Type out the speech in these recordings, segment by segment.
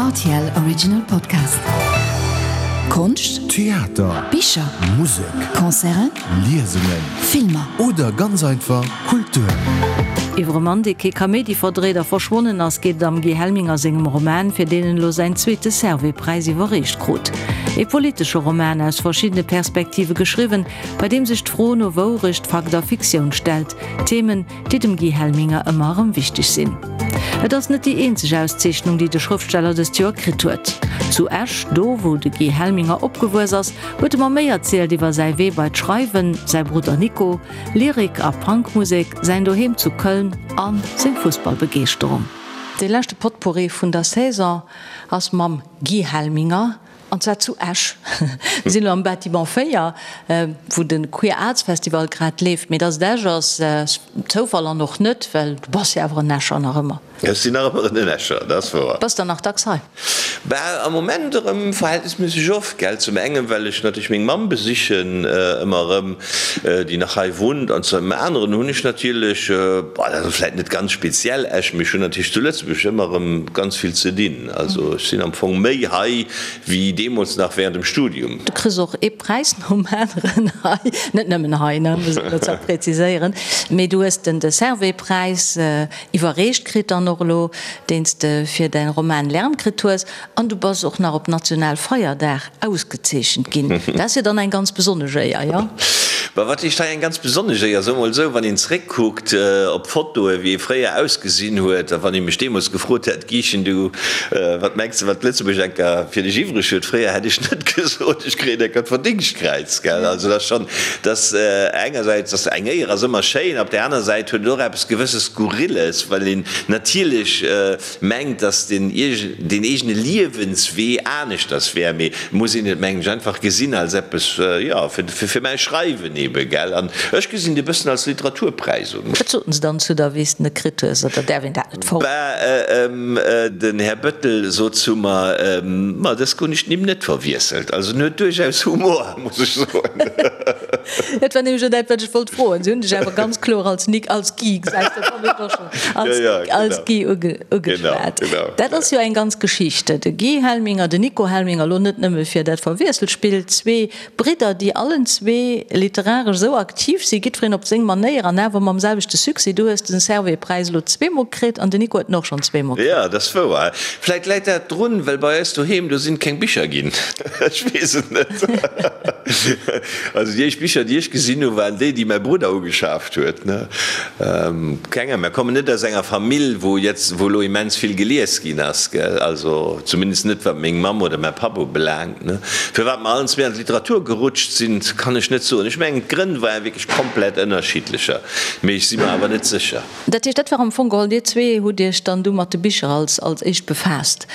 Rtl Original Podcast. Konscht, Theater, Bicher, Musek, Concerten, Liesungen, Filmer. Oder ganz einfach Kultur. Iwwer e Mann, dee kee Kaméidi verdréit a verschwonnen ass, geet et am Guy Helminger sengem Roman, fir deen en elo säin zweete Servais-Präis iwwerreecht krut. E politesche Roman, aus verschiddene Perspektive geschriwwen, bei deem sech d'Fro no Wourecht, Fakt a Fiktioun stellt. Themen, déi dem Guy Helminger ëmmer erëm wichteg sinn. Et ass net déi eenzeg Auszeechnung, déi de Schrëftsteller dëst Joer kritt huet. Zu Esch, do wou de Guy Helminger opgewuess ass, huet e mer méi erzielt iwwer säi Wee bei d'Schreiwen, säi Brudder Nico, Lyrik a Punkmusek, säin Doheem zu Köln a seng Fussballbegeeschterung. Dee leschte Potpourri vun der Saison ass mam Guy Helminger. An zwar zu Esch. Mir sinn elo am Bâtiment 4, wou de Queer Arts Festival grad leeft. Mee dass et Esch ass, ass Zoufall an och net, well du bass jo awer en Escher nach ëmmer. Ech sinn nach ëmmer en Escher, dat ass wouer. Bass der nach dacks hei? Bah, am Moment erëm verhältnisméisseg oft, gell. Zum engen, well ech natierlech meng Mamm besichen ëmmer erëm, déi nach hei wunnt. An zum aneren hunn ech natierlech, bah, dat ass vläicht net ganz speziell Esch, mee ech hunn natierlech zu Lëtzebuerg ëmmer erëm ganz vill ze dinn. Also ech sinn am Fong méi hei wéi deemools nach während dem Studium. Du kriss och ee Präis nom aneren hei, net nëmmen hei, ne, muss een dozou präziséieren, mee du hues den de Servais-Präis iwwerreecht kritt dann och elo, deen s de fir däin Roman Lärm kritt hues, an du bass och nach op Nationalfeierdag ausgezeechent ginn. Dat ass jo dann eng ganz besonnesch Éier, jo? Bah, wat heescht hei eng ganz besonnesch Éier? Soe mol esou, wann een zréckkuckt op d'Fotoe wéi ee fréier ausgesinn huet, a wann ee mech deemools gefrot hätt, Gichen, du, wat mengs de, wat Lëtzebuerg enker fir dech iwwreg huet? Fréier hätt ech net gesot, ech kréien enker d'Verdingstkräiz, gell? Also dat ass schonn, dat engersäits ass eng Éier ass ëmmer schéin, op där aner Säit huet et och eppes gewësses Skurrilles, well een natierlech mengt, dass den den eegene Liewenswee aneschters wär, mee et muss een et, mengen ech, einfach gesinn als eppes, jo, fir fir mäi Schreiwen ebe, gell. An ech gesinn et e bëssen als Literaturpräis un. Wat soten se dann zu der, wéi s de en kritt hues, oder däerf een dat net verroden? Bah, den Här Bettel sot zu mer, Ma, dës hunn ech d'Nimm net verwiesselt. Also en huet duerchaus Humor, muss ech soen. Dat war nämlech och dat, wat ech wollt froen. Se hunn dech awer ganz kloer als Nic, als Guy, gesäis de, dat hunn ech och schonn. Als Guy ugeschwat. Dat ass jo eng ganz Geschicht. De Guy Helminger, den Nico Helminger, elo net nëmme fir dat Verwiesselspill, zwee Bridder, déi allen zwee literaresch esou aktiv sinn, jiddwereen op seng Manéier an awer mam selwechte Succès. Du hues den Servais-Präis elo zweemol kritt an den Nico huet en och schonn zweemol kritt. Jo, dat ass wouer. Vläit läit dat drun, well bei eis doheem, do sinn keng Bicher ginn. Ech weess et net. Also déi éischt Bicher, déi ech gesinn hunn, waren déi, déi mäi Brudder ugeschaaft huet. Keng Ahnung, mir kommen net aus enger Famill, wou jetzt, wou elo immens vill gelies ginn ass, gell, also zumindest net wat meng Mamm oder mäi Papp ubelaangt, ne. Firwat mer allen zwee an d'Literatur gerutscht sinn, kann ech net soen. Ech mengen, d'Grënn ware wierklech komplett ënnerschiddlecher, mee ech si mer awer net sécher. Dat heescht, dat war am Fong geholl, dir zwee hutt iech dann du mat de Bicher als als éischt befaasst?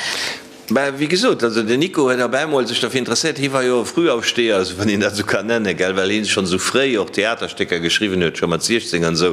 Mä wéi gesot, also den Nico huet op eemol sech derfir interesséiert. Hie war jo e Frühaufsteher, esou wann een dat esou kann nennen, gell, well hien schonn esou fréi och Theaterstécker geschriwwen huet, scho mat 16 an esou.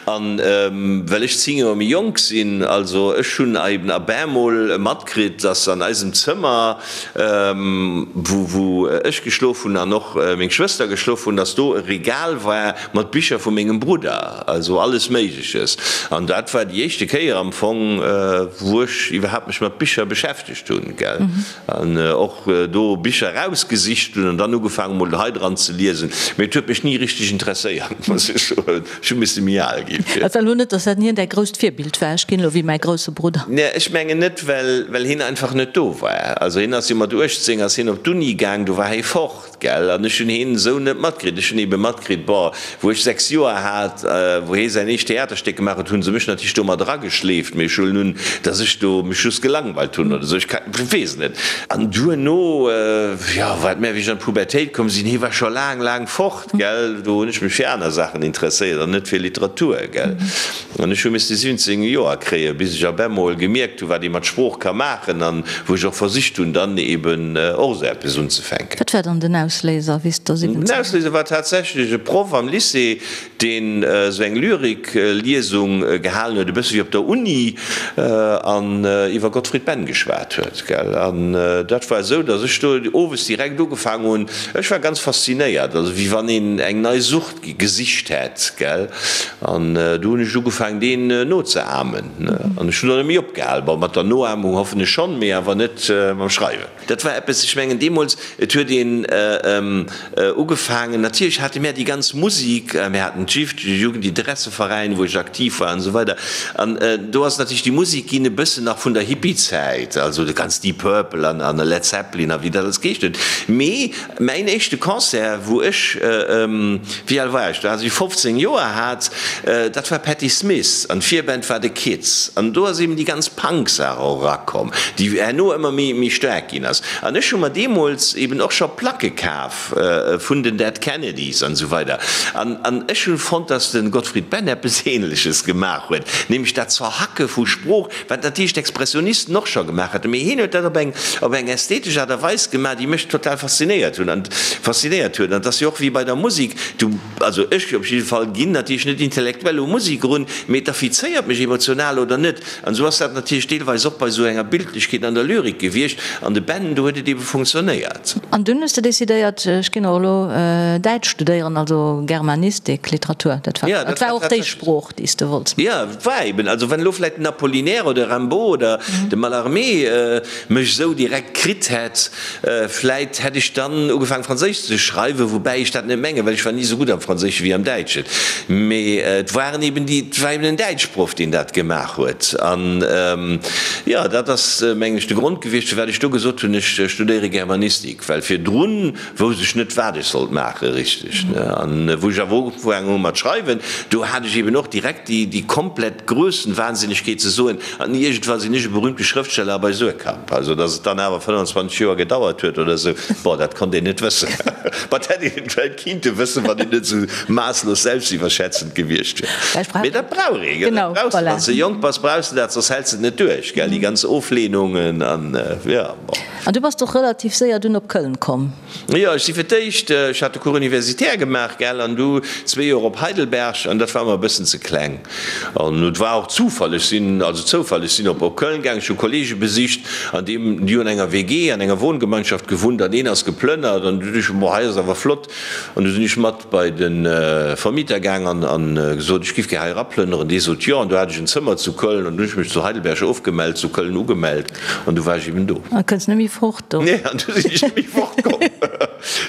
An well ech 10 Joer méi jonk sinn, also ech hunn eben op eemol matkritt, dass an eisem Zëmmer, wou wou ech geschlof hunn an och meng Schwëster geschlof hunn, dass do e Regal war mat Bicher vu mengem Brudder, also alles Méigleches. An dat war déi éischte Kéier am Fong, wou ech iwwerhaapt mech mat Bicher beschäftegt hunn, gell, an och do Bicher erausgesicht hunn an dann ugefaangen mol hei dran ze liesen. Mee et huet mech ni richteg interesséiert, muss ech soen. Ech hu misse méi al ginn fir. Et war elo net, dass dat hien däi grousst Virbild war, ech ginn elo wéi mäi grousse Brudder. Nee, ech mengen net, well well hien einfach net do war. Also hien ass jo mat 18 ass hien op d'Uni gaang, do war hie fort. Gell, an ech hunn heen esou net matkritt. Ech hunn ebe matkritt, bon, wou ech 6 Joer hat, wou hee säin éischt Theaterstéck gemaach huet, hu se mech natierlech do mat erageschleeft, mee ech huelen un, dass ech do mech just gelangweilt hunn oder esou, ech ka, weess et net. An duerno, jo, wat mä wéi ech an d'Pubertéit komm sinn, hee war scho laang, laang fort, gell, do hunn ech mech fir aner Saachen interesséiert an net fir Literatur, gell. An ech hu misste 17 Joer kréien, bis ech op emol gemierkt hu wat ee mat Sprooch ka maachen an wou ech och versicht hunn, dann eben och esou eppes unzefänken. Wat war dann den Ausléiser, wéi s de 17. Den Ausléiser war tatsächlech e Proff am Lycée, deen esou eng Lyrik-Liesung gehalen huet, e bësse wéi op der Uni, an iwwer Gottfried Benn geschwat huet. huet, gell. An dat war esou, datt ech do owes direkt ugefaangen hunn, ech war ganz faszinéiert, also wéi wann een eng nei Sucht gesicht hätt, gell. An du hunn ech ugefaangen, deen nozeahmen, ne. An ech hunn och net méi opgehal. Bon, mat der Noahmung hoffen ech schonn, mee awer net mam Schreiwen. Dat war eppes, ech mengen deemools, et huet een ugefaangen, natierlech hate mär déi ganz Musik, mär haten d'JIF, de Jugendinteresseveräin, wou ech aktiv war an esou weider. An do ass natierlech déi Musik ginn e bëssen nach vun der Hippiezäit, also de ganz Deep Purple an a Led Zeppelin a wéi dat alles geheescht huet. Mee mäin éischte Concert, wou ech, wéi al war ech do, als ech 15 Joer hat, dat war Patti Smith an d'Virband war The Kids. An do ass eben déi ganz Punk-Saach och erakomm, déi herno ëmmer méi méi staark ginn ass. An ech hu mer deemools eben och scho Placke kaf vun den Dead Kennedys an esou weider. An an ech hu fonnt, dass de Gottfried Benn eppes Ähnleches gemaach huet, nämlech dat Zerhacke vu Sprooch, wat natierlech d'Expressionisten och scho gemaach haten, mee hien huet dat op eng op eng ästhetesch Aart a Weis gemaach, déi mech total faszinéiert hunn an faszinéiert huet. An et ass jo och wéi bei der Musek, du, also ech op jidde Fall ginn natierlech net intellektuell u Musek erun, mee et affizéiert mech emotional oder net. An esou ass dat natierlech deelweis och bei esou enger Bildlechkeet an der Lyrik gewiescht. An de Ben, do huet et ebe funktionéiert. An dunn hues de decidéiert, ech ginn och elo Däitsch studéieren, also Germanistik, Literatur, dat war, dat war och déi Sprooch, déi s de wollts maachen. Jo, et war eben, also wann elo vläicht den Apollinaire oder Rimbaud oder de Mallarmé mech esou direkt kritt hätt, Vläit hätt ech dann ugefaang Franséisch ze schreiwen, woubäi ech dat net mengen, well ech war ni esou gutt am Franséische wéi am Däitschen. Mee et waren eben déi, et war eben en Däitschproff, deen dat gemaach huet. An jo, dat ass, mengen ech, de Grond gewiescht, firwat ech do gesot hunn, ech studéiere Germanistik, well virdrun wousst ech net, wat ech sollt maache richteg. An wou ech awer ugefaangen hu mat schreiwen, do hat ech eben och direkt déi, déi komplett Grössenwahnsinnegkeet ze soen, An iergendwann sinn ech e berühmte Schrëftsteller bei Suhrkamp. Also, datt et dann awer 25 Joer gedauert huet oder esou, bon, dat konnt een net wëssen. Ma dat hätt een et vläicht kinnte wëssen, wann een net esou maasslos selbstiwwerschätzend gewiescht wier. Mee dat brauch ee, gell? Dat brauchs de, wann s de jonk bass, brauchs de dat, soss häls de et net duerch, gell, déi ganz Oflehnungen an, jo, bon. An du bass och relativ séier dunn op Köln komm. Jo, ech si fir d'éischt, ech hat de Cours universitaire gemaach, gell, an du zwee Joer op Heidelberg, an dat war mer e bëssen ze kleng. An et war och Zufall, ech sinn, also Zoufall, ech sinn op op Köln gaang, ech hu Kollege besicht, an deem, déi hunn an enger WG, an enger Wohngemeinschaft gewunnt, an een ass geplënnert, an du duecht ech, boah, hei ass awer flott. An du sinn ech mat bei de Vermieter gaang an an gesot, ech giff gär hei eraplënneren. Dee sot jo, an du hat ech en Zëmmer zu Köln, an du hunn ech mech zu Heidelberg ofgemellt, zu Köln ugemellt, an du war ech eben do. An kënns net méi fort do. Nee, an du sinn ech net méi fort komm.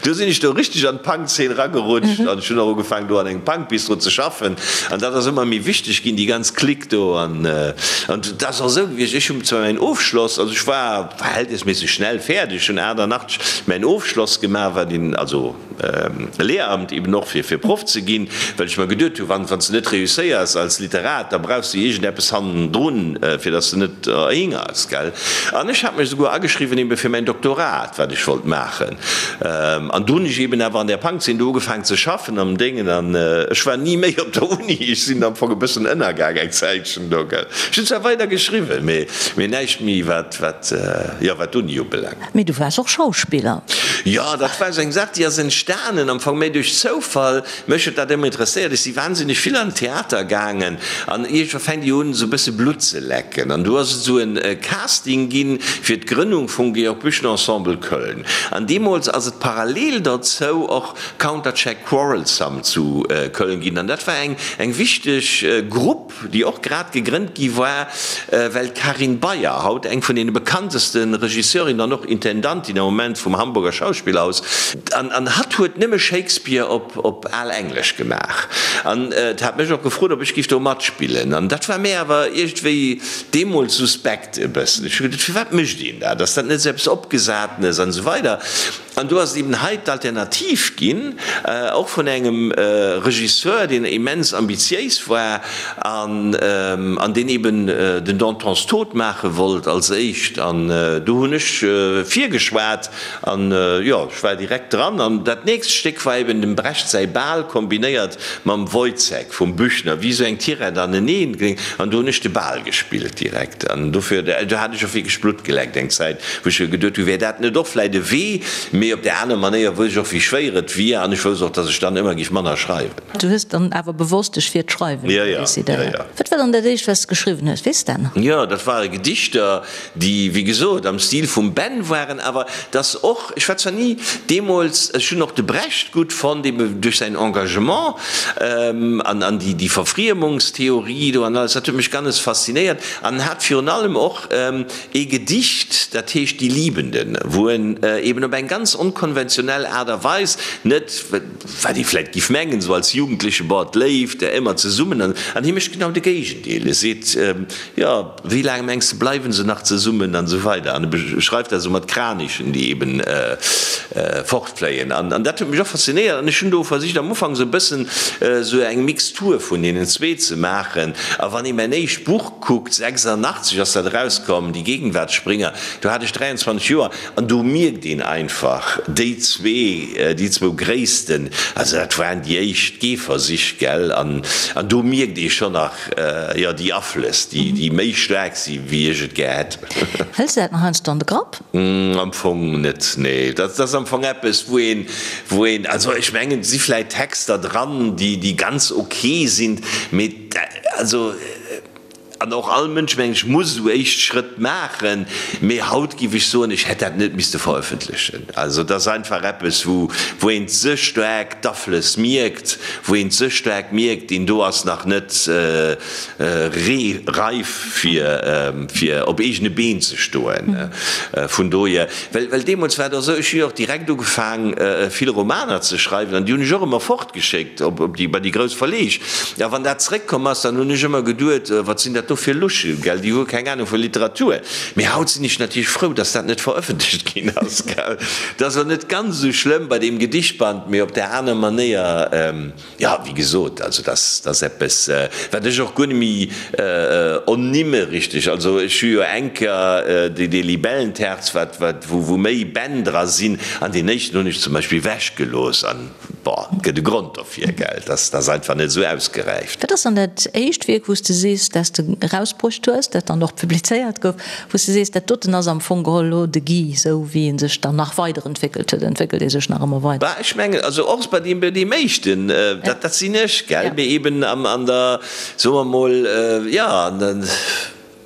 Du sinn ech do richteg an d'Punk-Zeen ragerutscht an ech hunn och ugefaangen do an engem Punk-Bistro ze schaffen an dat ass ëmmer méi wichteg ginn, déi ganz Clique do. An an dat ass och esou gewiescht, ech hunn zwar mäin Ofschloss, also ech war verhältnisméisseg schnell fäerdeg, ech hunn 88 mäin Ofschloss gemaach, wat een, also Lehramt eben och fir fir Proff ze ginn, well ech mer geduet hunn, wann wann s de net réusséiers als Literat, da brauchs de iergendeppes hannendrun, fir datt s de net erhingers, gell. An ech hat mech esouguer ageschriwwen ebe fir mäin Doktorat, wat ech wollt maachen. An du hunn ech eben awer an där Punkzeen do ugefaangen ze schaffen am Déngen an ech war ni méi op der Uni. Ech sinn am Fong e bëssen ënnergaang eng Zäitchen do, gell. Ech hunn zwar weider geschriwwen, mee mee näischt méi wat wat jo wat d'Uni ubelaangt. Mee du waars och Schauspiller. Jo, dat war esou eng Saach, déi ass entstanen am Fong méi duerch Zoufall. Mech huet dat ëmmer interesséiert. Ech si wahnsinneg vill an den Theater gaangen an iergendwa fänkt ee un, esou e bësse Blutt ze lecken. An du ass et esou e Casting ginn fir d'Grënnung vum Georg Büchner Ensemble Köln. An deemools ass et parallel derzou och Countercheck Quarrelsome zu Köln ginn. An dat war eng eng wichteg Grupp, déi och grad gegrënnt gi war, well d'Karin Beyer, haut eng vun deene bekannteste Regisseurinnen an och Intendantin am Moment vum Hamburger Schauspielhaus, an an hatt huet nëmme Shakespeare op op al Englesch gemaach an hat mech och gefrot, ob ech giff do matspillen. An dat war mär awer iergendwéi deemools suspekt e bëssen. Ech hu geduet, firwat mécht een dat? Ass dat net esou eppes Opgesatenes an esou weider. An do ass et eben hei d'Alternativ ginn, och vun engem Regisseur, deen immens ambitiéis war an an deen eben den Dantons Tod maache wollt als éischt. An do hunn ech virgeschwat an, jo, ech war direkt dran. An dat nächst Stéck war eben dem Brecht säi Bal kombinéiert mam Woyzeck vum Büchner, wéi esou eng Tirett aneneen. An do hunn ech de Bal gespillt direkt. An dofir, do hat ech och wierklech Blutt geleckt eng Zäit, wou ech geduet hunn, wär dat net och vläit e Wee? Mee. Mee op där aner Manéier wousst ech och, wéi schwéier et wier an ech wousst och, dass ech dann ëmmer géif manner schreiwen. Du hues dann awer bewosst dech fir d'Schreiwen decidéiert. Wat war dann dat éischt, wat s de geschriwwen hues? Weess de dat nach? Jo, dat ware Gedichter, déi, wéi gesot, am Stil vum Ben waren, awer dass och, ech war zwar ni deemools, ech hunn och de Brecht gutt fonnt, ebe duerch säin Engagement an an déi, déi Verfriemungstheorie do an alles, dat huet mech ganz faszinéiert an en hat virun allem och ee Gedicht, dat heescht Die Liebenden, wou en eben op eng ganz onkonventionell Aart a Weis, net wat ee vläicht giff mengen, esou als Jugendleche, boah, d'Léift, ëmmer zesummen, an hie mécht genau de Géigendeel, e seet, jo, Wéi laang mengs de bleiwen se nach zesummen an esou weider an e beschreift dat esou mat Kranichen déi eben fortfléien an an dat huet mech och faszinéiert an ech hunn do versicht am Ufank esou e bëssen esou eng Mixtur vun deenen zwee ze maachen a wann ee mäin éischt Buch kuckt, 86 ass dat erauskomm, Die Gegenwartsspringer, do hat ech 23 Joer an do mierkt een einfach déi zwee, déi zwou Gréissten, also dat waren déi éischt Gehversich, gell, an an do mierkt ee schonn nach, Jo, déi Aflëss, déi méi staark si wéi ech et gär hätt. Hëls de dat nach heiansdo an de Grapp? Am Fong net, nee. Dat ass am Fong eppes, wou een, wou een, also ech mengen, et si vläit Texter dran, déi ganz ok sinn, mee also, an och all Mënsch, mengen ech, muss esou éischt Schrëtt maachen, mee haut géif ech soen, ech hätt dat net misste verëffentlechen. Also et ass einfach eppes, wou, wou een ze staark d'Aflëss mierkt, wou een ze staark mierkt, deen do ass nach net reif fir op eegene Been ze stoen. Vun dohier, well well deemools war et och esou, ech hu jo och direkt ugefaang vill Romaner ze schreiwen an déi hunn ech och ëmmer fortgeschéckt op op déi bei déi grouss Verleeg. A wann dat zeréckkomm ass, dann hunn ech ëmmer geduet, wat sinn dat do fir Luschen, gell, déi hu keng Anung vu Literatur. Mee haut sinn ech natierlech frou, dass dat net verëffentlecht ginn ass, gell. Dat ass och net ganz esou schlëmm bei deem Gedichtband, mee op där aner Manéier, jo, wéi gesot, also dat ass eppes, wat ech och guer net méi ernimme richteg. Also ech hu jo eng Kéier dee Libellenterz, wat, wat, wou méi Bänn dra sinn, an deen éischten hunn ech zum Beispill ewechgelooss an, bon, et gëtt e Grond dofir, gell, dat ass einfach net esou ausgeräift. Wat ass dann dat éischt Wierk, wou s de sees, dat s de erausbruecht hues, dat dann och publizéiert gouf, wou s de sees, dat doten ass am Fong geholl elo de Guy, esou wéi e sech dann nach weiderentwéckelt huet, entwéckelt ee sech nach ëmmer weider? Bah, ech mengen, also och bei deem, bei deem éischten, dat, dat sinn ech, gell, mee eben am, an der, soe mer mol, jo, an der,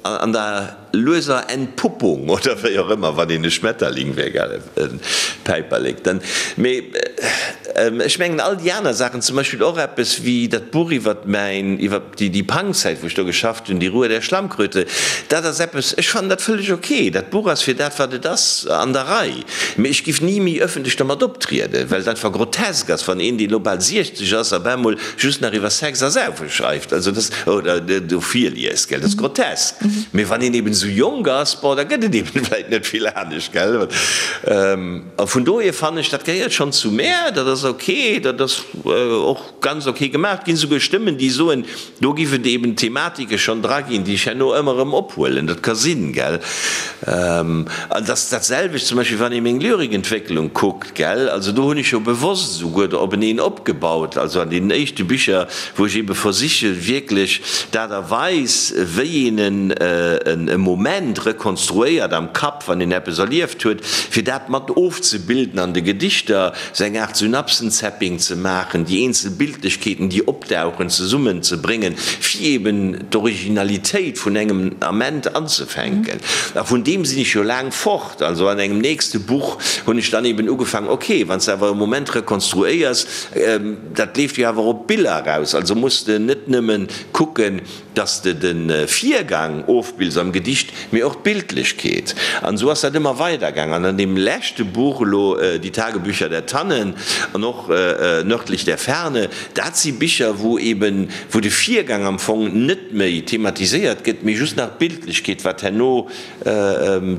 an der lueser Entpuppung oder wéi och ëmmer, wann een e Schmetterling wär, gell, e Päiperlek, dann, mee ech mengen all déi aner Saachen, zum Beispill och eppes wéi dat Buch iwwert mäin, iwwer déi Punkzäit, wou ech do geschafft hunn, Die Ruhe der Schlammkröte, dat ass eppes, ech fannen dat vëlleg ok. Dat Buch ass fir dat, wat et ass, an der Rei. Mee ech giff ni méi ëffentlech dermat optrieden, well et einfach grotesk ass, wann een, deen elo bal 60 ass, op eemol just nach iwwer Sex a Saufe schreift, also dat, oder do virliest, gell, dat ass grotesk. Mee wann een eben esou jonk ass, bon, da gëtt et eben vläit net vill anescht, gell. A vun dohier fannen ech, dat gehéiert schonn zu mär, dat ass ok, dat ass och ganz ok gemaach. Et ginn esouguer Stëmmen, déi soen, do giff et eben Thematike schonn dra ginn, déi ech herno ëmmer erëm ophuelen. Dat ka sinn, gell. An et ass dat selwecht zum Beispill, wann ee meng Lyrikentwécklung kuckt, gell. Also do hunn ech jo bewosst esouguer do openeen opgebaut, also an deenen éischte Bicher, wou ech ebe versiche wierklech d'Aart a Weis, wéi een e Moment rekonstruéiert am Kapp, wann een eppes erlieft huet, fir dat mat ofzebilden an de Gedichter. Sou eng Aart Synapsenzapping ze maachen, déi eenzel Bildlechkeeten, déi opdauchen, zesummen ze bréngen, fir eben d'Originalitéit vun engem Ament anzefänken. A vun deem sinn ech jo laang fort. Also an engem nächste Buch hunn ech dann eben ugefaangen, ok, wann s de awer e Moment rekonstruéiers, dat leeft jo awer op Biller eraus, also muss de net nëmmen kucken, dass de de Virgang ofbills am Gedicht, mee och d'Bildlechkeet. An esou ass dat ëmmer weidergaang. An an deem leschte Buch elo, Die Tagebücher der Tannen an och Nördlich der Ferne, dat si Bicher, wou eben, wou de Virgang am Fong net méi thematiséiert gëtt, mee just nach d'Bildlechkeet, wat herno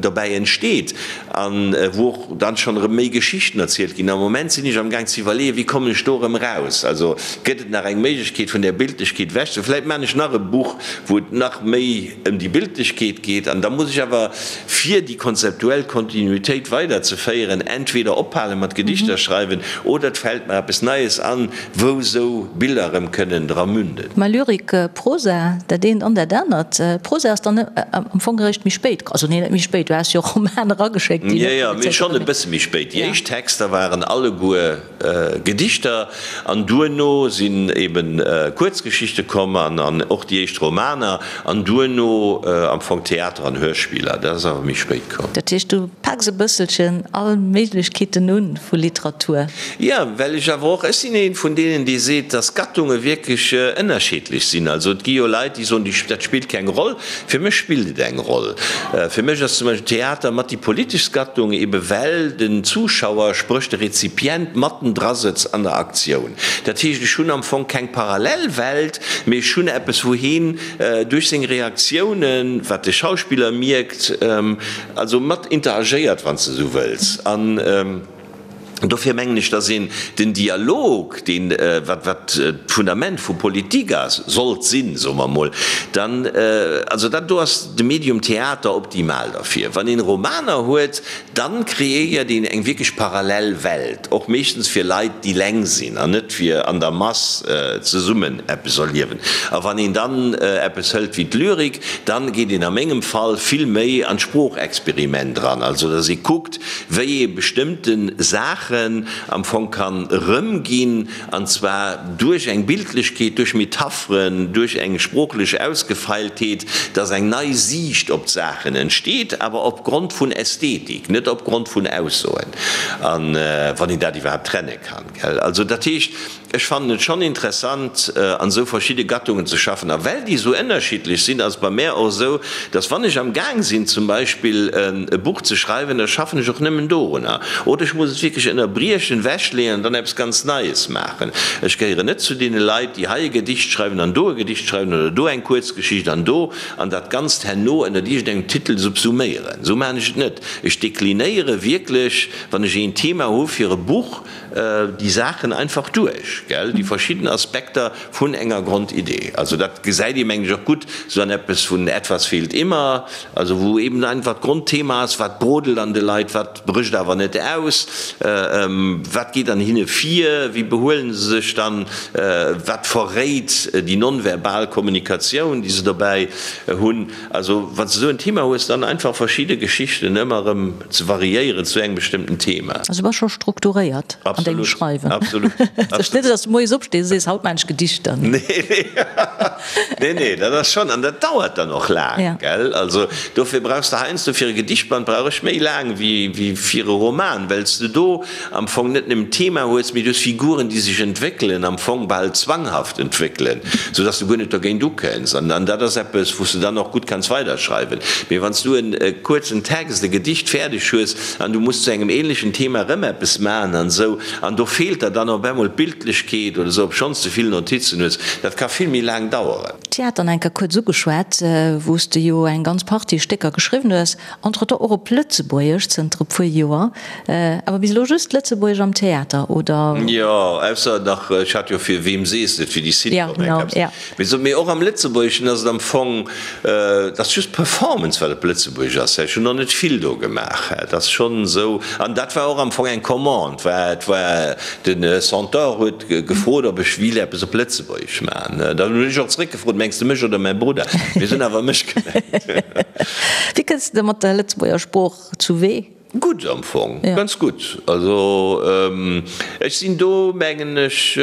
dobäi entsteet an wou och dann schonn erëm méi Geschichten erzielt ginn. Am Moment sinn ech am Gaang ze iwwerleeën, wéi kommen ech do erëm eraus? Also gëtt et nach eng Méiglechkeet vun där Bildlechkeet ewech ze. Vläit maachen ech nach e Buch, wou et nach méi ëm déi Bildlechkeet geet. geet. An da muss ech awer, fir déi konzeptuell Kontinuitéit weiderzeféieren, entweder ophale mat Gedichter schreiwen oder et fält mer eppes Neies an, wou esou Biller erëm kënnen dra münden. Mä Lyrik, Prosa, dat eent an dat anert. Prosa ass dann am Fong eréischt méi spéit, also nee, net méi spéit, du has jo Romaner erageschéckt, déi net publizéiert. Jo, jo, mee schonn e bësse méi spéit. Déi éischt Texter waren alleguer Gedichter an duerno sinn eben Kuerzgeschichte komm an och déi éischt Romaner an duerno am Fong Theater an Hörspiller. Dat ass awer méi spéit komm. Dat heescht, du paks e bësselchen all Méiglechkeeten un vu Literatur? Jo, well ech awer och, ech sinn ee vun deenen, dee seet, dass Gattunge wierklech ënnerscheedlech sinn. Also et gi jo Leit, déi soen, dat spillt keng Roll. Fir mech spillt et eng Roll. Fir mech ass zum Beispill Theater mat déi politeschst Gattung, ebe well den Zuschauer, spréch de Rezipient, matten dra sëtzt an der Aktioun. Dat heescht, ech hunn am Fong keng Parallelwelt, mee ech hunn eppes, wou heen duerch seng Reaktiounen, wat de Schauspiller mierkt, also mat interagéiert, wann s de esou wëlls. An dofir mengen ech, dass een den Dialog, deen, wat, wat d'Fundament vu Politik ass, sollt sinn, soe mer emol, dann, also dat do ass de Medium Theater optimal derfir. Wann een Romaner huet, dann kreéiert een eng wierklech parallel Welt, och meeschtens fir Leit, déi leng sinn an net fir an der Mass zesummen eppes erliewen. A wann een dann eppes hëlt wéi d'Lyrik, dann geet een a mengem Fall vill méi an d'Sproochexperiment eran, also dass ee kuckt, wéi ee bestëmmte Saachen am Fong kann erëmginn, an zwar duerch eng Bildlechkeet, duerch Metapheren, duerch eng sproochlech Ausgefeiltheet, dass eng nei Siicht op d'Saachen entsteet, awer opgrond vun Ästhetik, net opgrond vun Aussoen, a wann een dat iwwerhaapt trenne kann, gell. Also dat heescht, Ech fannen et schonn interessant, an esou verschidde Gattungen ze schaffen. A well déi esou ënnerschiddlech sinn, ass et bei mär och esou, dass wann ech am Gaang sinn zum Beispill e Buch ze schreiwen, da schaffen ech och nëmmen dorunner. Oder ech muss et wierklech ënnerbriechen, wechleeën an dann eppes ganz Neies maachen. Ech gehéieren net zu deene Leit, déi hei e Gedicht schreiwen an do e Gedicht schreiwen oder do eng Kuerzgeschicht an do an dat Ganzt herno ënnert iergendengem Titel subsuméieren. Esou maachen ech et net. Ech deklinéiere wierklech, wann ech een Thema hu fir e Buch, déi Saachen einfach duerch, gell, déi verschidden Aspekter vun enger Grondidee. Also dat gesäit ee mengen ech och gutt esou an eppes vun Etwas fehlt immer, also wou eben einfach d'Grondthema ass, wat brodelt an de Leit, wat brécht awer net aus, wat geet an hinne vir, wéi behuelen se sech dann, wat verréit déi nonverbal Kommunikatioun, déi se dobäi hunn. Also wann s de esou en Thema hues, dann einfach verschidde Geschichten ëmmer erëm ze variéieren zu engem bestëmmten Thema. Also du bass scho strukturéiert an dengem Schreiwen. Absolut, absolut. Ass net, dass du moies opstees a sees, haut maan ech Gedichter. Nee, nee, nee, nee, dat ass schonn, an dat dauert dann och laang, gell. Also dofir brauchs de heiansdo, fir e Gedichtband brauch ech méi laang wéi fir e Roman, well s de do am Fong net nëmmen d'Thema hues, mee du hues Figuren, déi sech entwéckelen, am Fong bal zwanghaft entwéckelen, sou dass du guer net dogéint ukënns. An dat ass eppes, wou s du dann och gutt kanns weiderschreiwen. Mee wann s du e kuerzen Text, e Gedicht fäerdeg hues an du muss zu engem ähnlechen Thema erëm eppes maachen an esou, an do feelt der dann op eemol d'Bildlechkeet oder esou, obschonns de vill Notizen hues, dat ka vill méi laang daueren. Theater nach eng Kéier kuerz ugeschwat, wou s de jo eng ganz Partie Stécker geschriwwen hues, entretemps och op Lëtzebuergesch zënter e puer Joer. Awer bis elo just Lëtzebuergesch am Theater, oder? Jo, ausser nach, ech hat jo fir Wem sees de et, fir déi Sitcom eng Kapsel. Mee so, mee och am Lëtzebuergeschen ass et am Fong, et ass just d'Performance wat op Lëtzebuergesch ass. Ech hunn och net vill do gemaach. Et ass schonn esou, an dat war och am Fong eng Commande, war, et war de Centaure huet gefrot, ob ech wéilt eppes op Lëtzebuergesch maachen. Dann hunn ech och zeréckgefrot, Mengs de mech oder mäi Brudder? Mee se hunn awer mech gemengt. Wéi kënns de mat der Lëtzebuerger Sprooch zu Wee? Gutt am Fong, ganz gutt. Also ech sinn do mengen ech,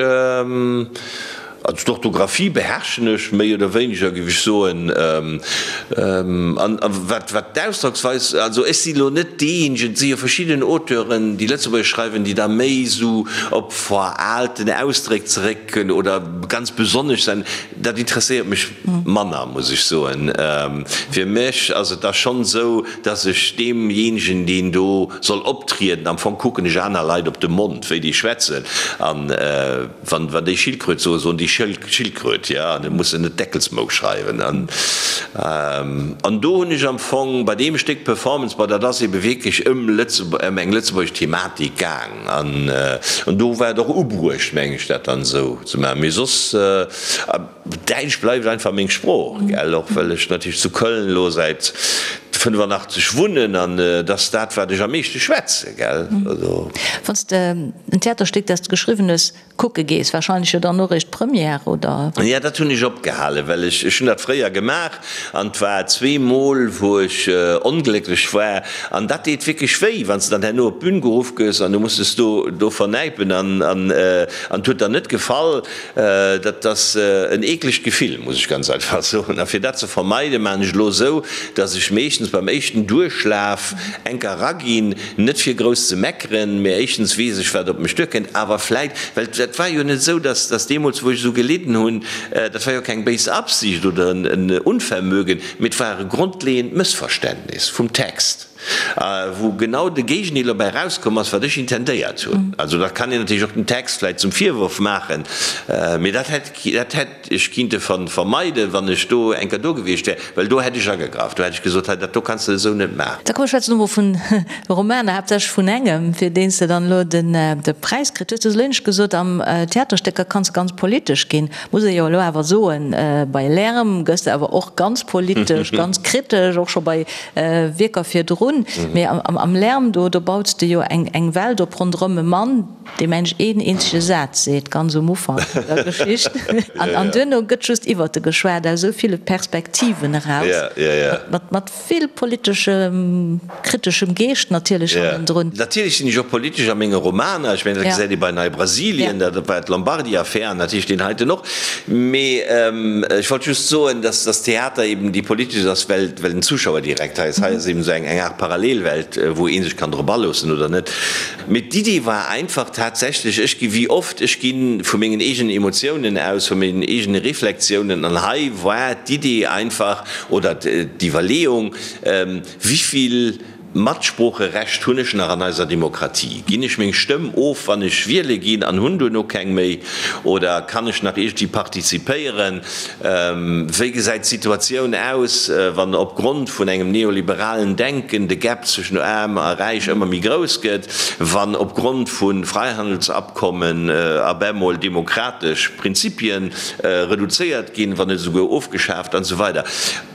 also d'Orthografie beherrschen ech méi oder wéineger géif ech soen. An wat wat d'Ausdrocksweis, also ech si lo net deejéinegen, et si jo verschidden Auteuren déi Lëtzebuergesch schreiwen, déi da méi esou op veraalten Ausdréck zeréck oder ganz besonnesch sen, dat interesséiert mech manner muss ech soen. Fir mech ass et da schonn esou, dass ech deemjéinegen, deen do soll optrieden, am Fong kucken ech aner Leit op de Mond, wéi déi schwätzen, an wann déi Schildkröt soen, soen déi. Schildkröt, jo, an et muss en net Deckelsmou schreiwen. An, an do hunn ech am Fong bei deem Stéck Performance, bon, dat ass ebe wierklech ëm Lëtzebuerg, ëm eng lëtzebuergesch Thematik gaang an, an do war et och ubruecht, meng ech, dat dann esou ze maachen. Mee soss, Däitsch bleift einfach meng Sprooch, gell, och well ech natierlech zu Köln elo säit 85 wunnen an et ass dat, wat ech am meeschte schwätze, gell. Also. Wann s de en Theaterstéck, dat s de geschriwwen hues, kucke gees, warscheinlech jo dann och eréischt d'Première, oder? Jo, dat hunn ech opgehalen, well ech, ech hunn dat fréier gemaach an et war zweemol, wou ech onglécklech war an dat deet wierklech wéi, wann s de dann herno op d'Bün geruff gëss an du muss dech do, do vernäipen an, an, an et huet der net gefall. Dat ass en eeklegt Gefill, muss ech ganz einfach soen. A fir dat ze vermeiden, maachen ech elo esou, dass ech meeschtens beim éischten Duerchlaf enker eraginn, net fir grouss ze meckeren, mä éischtens weess ech, wat op mech duerkënnt, awer vläit, well dat war jo net esou, dass dass deemools, wou ech esou gelidden hunn, dat war jo keng béis Absicht oder en Unvermögen, mee et war e grondleeënd Mëssverständnis vum Text. Wou genau de Géigendeel dobäi erauskomm ass, wat ech intendéiert hunn. Also dat kann een natierlech och dem Text vläicht zum Virwurf maachen, mee dat hätt, dat hätt ech kinnte vermeiden, wann ech do eng Kéier do gewiescht wär, well do hätt ech agegraff, do hätt ech gesot, hei dat do kanns de esou net maachen. Da komm, ech schwätzen elo mol vun Romaner, haaptsächlech vun engem, fir deen s de dann elo de Präis kritt hues. Du hues elo éinescht gesot, am Theaterstécker kanns de ganz politesch ginn. Muss ee jo elo awer soen, bei Lärm gëss de awer och ganz politesch, ganz kritesch, och scho bei Wierker virdrun. Mee am Lärm, do baus de jo eng Welt op ronderëm e Mann, dee mensch een eenzege Saz seet, ganz um Ufank vun der Geschicht. An duerno gëtt just iwwert e geschwat, aus esou ville Perspektiven eraus, mat vill politeschem, kriteschem Geescht natierlech hannendrun. Natierlech sinn ech och politesch a menge Romaner. Ech mengen, dat gesäit ee bei Nei-Brasilien, dat war d'Lombardi-Affär an natierlech deen heiten och. Mee ech wollt just soen, dass dass Theater eben déi politesch ass, well well den Zuschauer direkt hei ass. Hei ass eben esou eng eng Aart Parallelwelt, wou ee sech kann drop aloossen oder net. Mee d'Idee war einfach tatsächlech, ech gi wéi oft, ech gi vu mengen eegenen Emotiounen aus, vu mengen eegene Reflexiounen an hei war d'Idee einfach oder d'Iwwerleeung, Wivill Matsproocherecht hunn ech nach an eiser Demokratie? Ginn ech meng Stëmm of, wann ech wiele ginn an hunn duerno keng méi? Oder kann ech nach iergendwéi partizipéieren? Wéi gesäit d'Situatioun aus, wann opgrond vun engem neoliberalen Denken de Gap zwëschen Aarm a Räich ëmmer méi grouss gëtt, wann opgrond vu Freihandelsabkommen op emol demokratesch Prinzipien reduzéiert ginn, wann net esouguer ofgeschaaft an esou weider?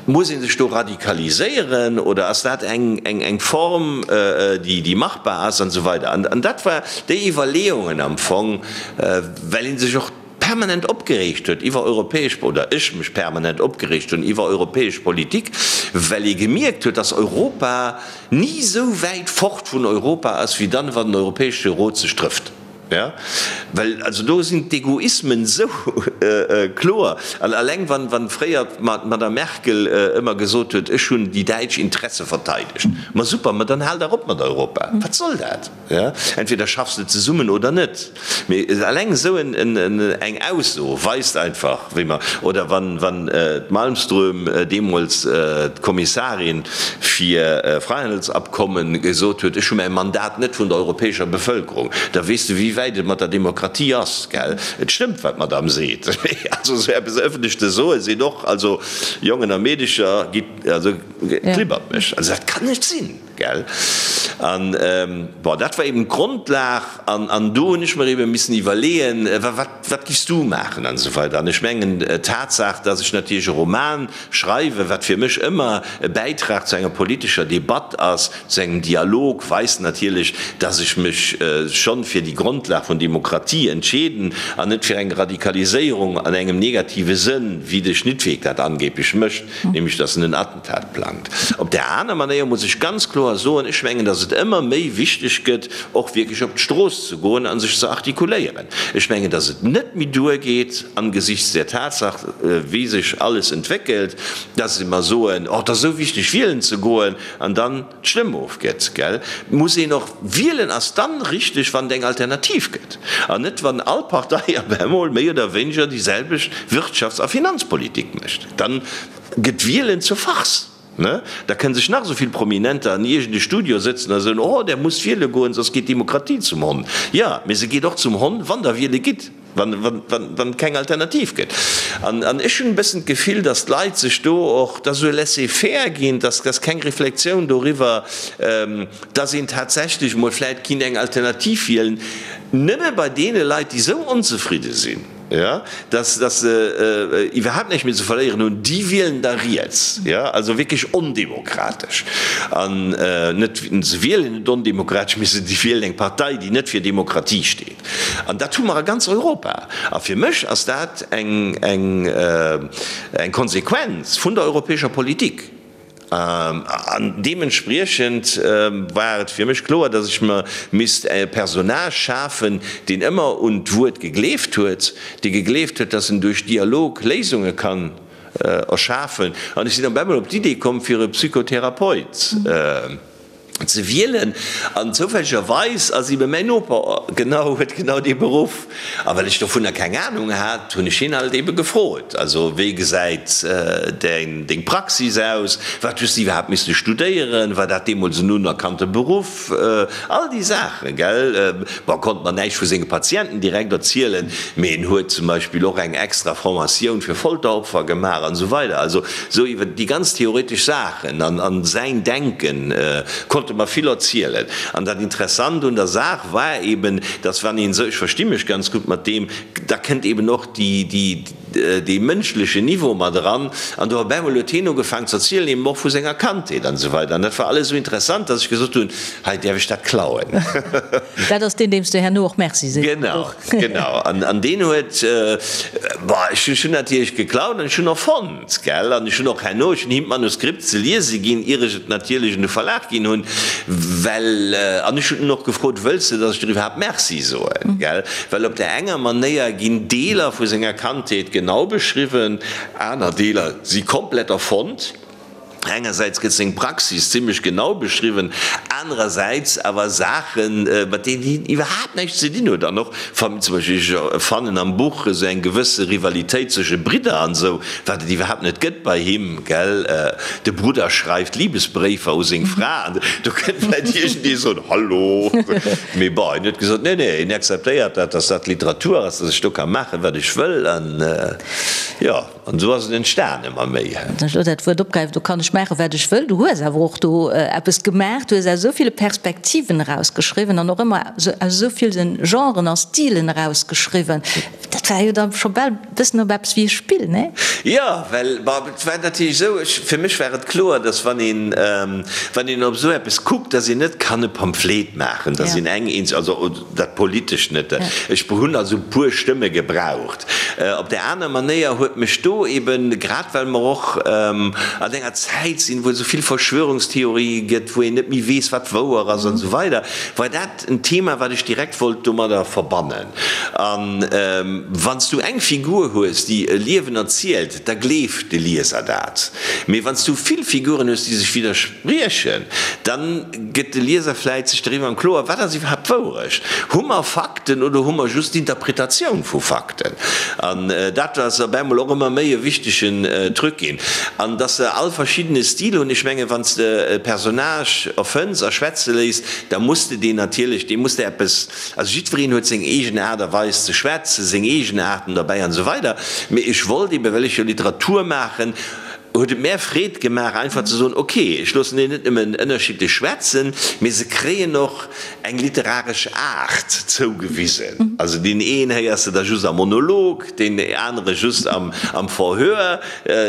Muss ee sech do radikaliséieren oder ass dat eng Form, déi machbar ass an esou weider. An dat war déi Iwwerleeungen am Fong, well ee sech och permanent opgereegt huet iwwer europäesch, oder ech mech permanent opgereegt hunn iwwer europäesch Politik, well ee gemierkt huet, dass Europa ni esou wäit fort vun Europa ass wéi dann, wann den Europäesche Rot sech trëfft. Ja, well also do sinn d'Egoismen esou kloer. An alleng wann, wann fréier d'Madame Merkel ëmmer gesot huet, ech hunn déi däitsch Interesse verteidegt. Ma super, ma dann hal dach op mat Europa. Wat soll dat? Ja, entweder schaffs de zesummen oder net. Mee alleng esou eng Ausso weist einfach, wéi mer, oder wann, wann d'Malmström deemools, d'Kommissarin fir Freihandelsabkommen, gesot huet, ech hu mäi Mandat net vun der europäescher Bevëlkerung. Da weess de wéi wäit et mat der Demokratie ass, gell? Et stëmmt wat d'Madame seet, mee also esou eppes ëffentlech ze soen, seet och, also Jongen a Meedecher, gitt, also klibbert mech, also dat kann net sinn, gell? An bon, dat war eben d'Grondlag an an do hunn ech mer eben missen iwwerleeën, wat wat giffs du maachen an esou weider. An ech mengen d'Tatsaach, dass ech natierlech e Roman schreiwen, wat fir mech ëmmer e Bäitrag zu enger politescher Debatt ass, zu engem Dialog, weist natierlech, dass ech mech schonn fir déi Grondlag vun Demokratie entscheeden an net fir eng Radikaliséierung an engem negative Sënn, wéi de Schnittweg dat angeblech mécht, nämlech dass en en Attentat plangt. Op där aner Manéier muss ech ganz kloer soen, ech mengen, dass et ëmmer méi wichteg gëtt, och wierklech op d'Strooss ze goen a sech ze artikuléieren. Ech mengen, dass et net méi duergeet, angesichts der Tatsaach, wéi sech alles entwéckelt, dass mer soen, Oh, et ass esou wichteg, wielen ze goen, an dann d'Stëmm ofgëtt. Gell? Et muss een och wielen ass dann richteg, wann et eng Alternativ gëtt, an net wann all Partei op emol méi oder wéineger déi selwecht Wirtschafts a Finanzpolitik mécht. Dann gëtt Wielen zur Farce. Ne? Da kënne sech nach esou vill Prominenter an iergend e Studio sëtzen a soen, Oh, där musst wiele goen, soss geet d'Demokratie zum Honn. Jo, mee se geet och zum Honn, wann der wiele gitt. Wann, wann, wann, wann et keng Alternativ gëtt. An, an ech hunn e bëssen d'Gefill, dass d'Leit sech do och, dass esou e Laisser-faire ginn, dass, dass keng Reflexioun doriwwer, dass een tatsächlech emol vläicht kinnt eng Alternativ wielen, nëmme bei deene Leit, déi esou onzefridde sinn, jo, dass, dass se iwwerhaapt näischt méi ze verléieren hunn, déi wielen da riets, jo, also wierklech ondemokratesch. An net, se wielen net ondemokratesch, mee se wielen eng Partei, déi net fir Demokratie steet. An dat hu mer a ganz Europa. A fir mech ass dat eng, eng, eng Konsequenz vun der europäescher Politik. An deementspriechend war et fir mech kloer, dass ech mer misst e Personnage schafen, deen ëmmer un d'Wuert gegleeft huet, dee gegleeft huet, dass en duerch Dialog Léisunge kann erschafen. An ech sinn op eemol op d'Idee komm, fir e Psychotherapeut ze wielen an zoufällegerweis ass ebe mäin Noper genau, huet genau dee Beruff a well ech dovunner keng Ahnung hat, hunn ech hien halt ebe gefrot, also wéi gesäit däin, deng Praxis aus, wat hues de iwwerhaapt misste studéieren, war dat deemools en unerkannte Beruff, all déi Saachen, gell. Bon, konnt mer näischt vu senge Patienten direkt erzielen, mee en huet zum Beispill och eng extra Formatioun fir Folteropfer gemaach an esou weider, also esou iwwer déi ganz theoretesch Saachen an an säin Denken konnt e mer vill erzielen. An dat Interessant un der Saach war eben, dass wann een esou, ech versti mech ganz gutt mat deem, da kënnt eben och déi, déi, dee mënschlechen Niveau mat eran. An do op eemol huet hien ugefaangen ze erzielen, eben och vu senger Kandheet an esou weider. An dat war alles esou interessant, dass ech gesot hunn, hei däerf ech dat klauen. Dat ass deen, deem s de herno och Merci sees. Genau, genau. An deen huet, bon, ech hunn natierlech geklaut an ech hunn och fonnt, gell. An ech hunn och herno, ech hunn him d'Manuskript ze liese ginn, ier ech et natierlech un de Verlag ginn hunn, well, an ech hunn en och gefrot, wëlls de, dass ech der iwwerhaapt Merci soen, gell. Well op där enger Manéier ginn Deeler vu senger Kandheet genau beschriwwen, aner Deeler si komplett erfonnt. Engersäits gëtt seng Praxis zimmlech genau beschriwwen, anerersäits awer Saachen, mat deenen hien iwwerhaapt näischt ze dinn huet. An och, zum Beispill, ech fannen am Buch esou eng gewësse Rivalitéit zwësche Bridder an esou, wat et iwwerhaapt net gëtt bei him, gell. De Brudder schreift Libesbréifer u seng Fra an do kënnt vläicht iergendee soen, Hallo! Mee bon, hien huet gesot, nee, nee, hien akzeptéiert dat, datt dat Literatur ass, datt ech do ka maachen, wat ech wëll. An jo, an esou ass et entstan, ëmmer méi. Wann ech elo dat Wuert opgräifen, do kann ech maachen, wat ech wëll. Du hues awer och do eppes gemaach, du hues aus esou ville Perspektiven erausgeschriwwen an och ëmmer aus esou ville Genren a Stilen erausgeschriwwen. Dat war jo da scho bal e bëssen op eppes wéi e Spill, nee? Jo, well, bon, et war natierlech esou, ech, fir mech war et kloer, datt wann een, wann een op esou eppes kuckt, datt een net kann e Pamphlet maachen, datt een eng eenz, also dat Politescht net, ech hunn also e puer Stëmme gebraucht. Op där aner Manéier huet mech do eben, grad well mer och an enger Zäit sinn, wou et esou vill Verschwörungstheorië gëtt, wou een net méi weess, wat wouer ass an esou weider, war dat en Thema, wat ech direkt wollt domadder verbannen. A wann s du eng Figur hues, déi e Liewen erzielt, da gleeft de Lieser dat. Mee wann s du vill Figuren hues, déi sech widderspriechen, da gëtt de Lieser vläit sech doriwwer am Kloer, wat ass iwwerhaapt d'Wourecht? Hu mer Fakten oder hu mer just d'Interpretatioun vu Fakten? An dat ass op eemol och ëmmer méi e wichtegen Truc ginn. An dass se all verschiddene Stil hunn, ech mengen, wann s de e Personnage erfënns a schwätze léiss, da muss de deen natierlech, deem muss de eppes, Also jiddwereen huet seng eegen Aart a Weis ze schwätzen, seng Eegenaarten derbäi an esou weider. Mee ech wollt eben, well ech jo Literatur maachen, huet et mär Freed gemaach einfach ze soen, ok, ech loossen déi net nëmmen ënnerschiddlech schwätzen, mee se kréien och eng literaresch Aart zougewisen. Also deen een héiers de da just am Monolog, deen anere just am Verhör,